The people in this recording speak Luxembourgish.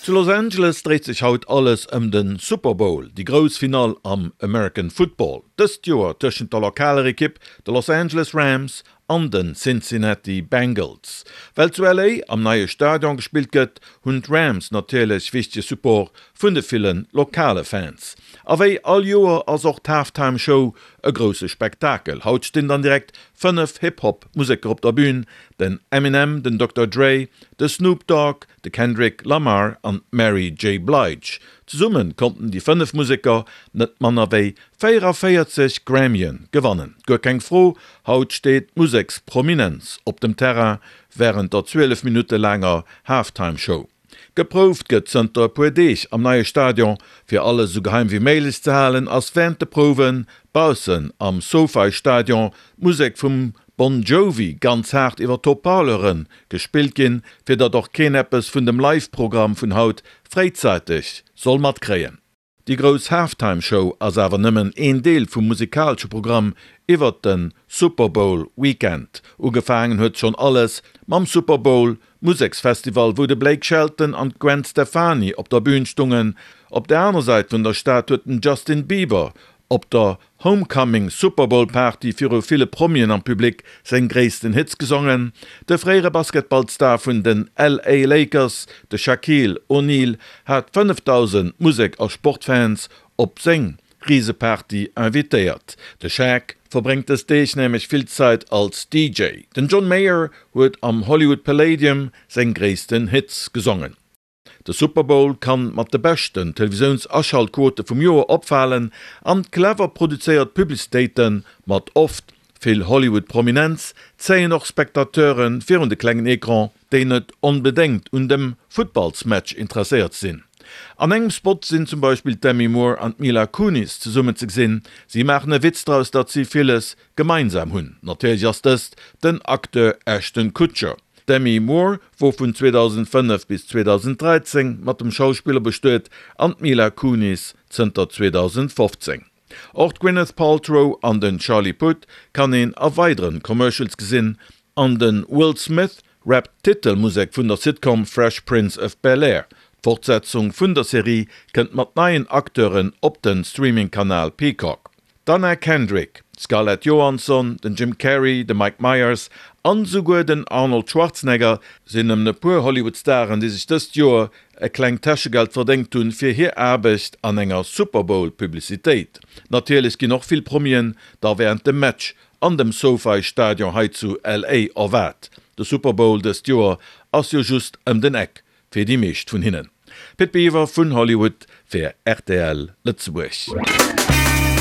Zu Los Angeles dréit sech haut alles ëm de Super Bowl, déi grouss Finall am American Football. Dëst Joer tëschent der lokaler Ekipp, de Los Angeles Rams, an de Cincinnati Bengals. Well zu LA am neie Stadion gespillt gëtt, hunn d'Rams natierlech wichtege Support vun de ville lokale Fans. A wéi all Joer ass och d'Halftime Show e grousse Spektakel. Haut stinn dann direkt 5 Hip-Hop Museker op der Bün, den Eminem, den Dokter Dre, de Snoop Dogg, de Kendrick Lamar an d'Mary J. Blige. Zesumme konnten déi 5 Museker net manner wéi 44 Grammyen gewannen. Guer keng Fro, haut steet d'Museksprominenz op dem Terrain wärend der 12 Minutte laanger Halftime Show. Geprouft gëtt zënter e puer Deeg am neie Stadion. Fir alles esou geheim wéi méiglech ze halen, ass wärend de Prouwe baussen am SoFi Stadion d'Musek vum Bon Jovi ganz haart iwwer d'Haut-Parleure gespillt ginn, fir datt och keen eppes vun dem Live-Programm vun haut fréizäiteg soll matkréien. Déi grouss Halftime Show ass awer nëmmen een Deel vum musikalesche Programm iwwert de Super Bowl Weekend. Ugefaangen huet schonn alles mam Super Bowl Museksfestival, wou de Blake Shelton an d'Gwen Stefani op der Bün stungen. Op der aner Säit vun der Stad huet den Justin Bieber Op der Homecoming Super Bowl Party viru ville Promien am Public seng gréissten Hits gesongen. De fréiere Basketballstar vun den LA Lakers, de Shaquille O'Neal, hat 5.000 Musek a Sportfans op seng Riseparty invitéiert. De Shaq verbréngt dës Deeg nämlech vill Zäit als DJ. Den John Mayer huet am Hollywood Palladium seng gréissten Hits gesongen. De Super Bowl kann mat de beschten Televisiouns-Aschaltquote vum Joer opfalen an clever produzéiert Publicitéite mat oft vill Hollywood-Prominenz zéien och Spectateure virun de klengen Ecran, déi net onbedéngt un dem Futtballsmatch interesséiert sinn. An engem Spot sinn zum Beispill d'Demi Moore an d'Mila Kunis zesummen ze gesinn. Si maachen e Witz draus, datt si villes gemeinsam hunn. Natierlech ass dëst den Acteur Ashton Kutcher. D'Demi Moore wor vun 2005 bis 2013 mat dem Schauspiller bestuet an d'Mila Kunis zënter 2015. Och d'Gwyneth Paltrow an den Charlie Puth kann een a weideren Commercials gesinn an de Will Smith rappt d'Titelmusek vun der Sitcom Fresh Prince of Bel-Air. D'Fortsetzung vun der Serie kënnt mat neien Acteuren op den Streaming-Kanal Peacock. D'Anna Kendrick, d'Scarlett Johansson, den Jim Carrey, de Mike Myers an esouguer den Arnold Schwarzenegger sinn nëmmen e puer Hollywood-Staren, déi sech dëst Joer e klengt Täschegeld verdéngt hunn fir hir Aarbecht an enger Super Bowl-Publicitéit. Natierlech ginn och vill Promien da wärend dem Match an dem SoFi Stadion hei zu LA erwaart. De Super Bowl dëst Joer ass jo just ëm den Eck Fir déi meescht vun hinnen. Pit Biwer vun Hollywood fir rtl Lëtzebuerg.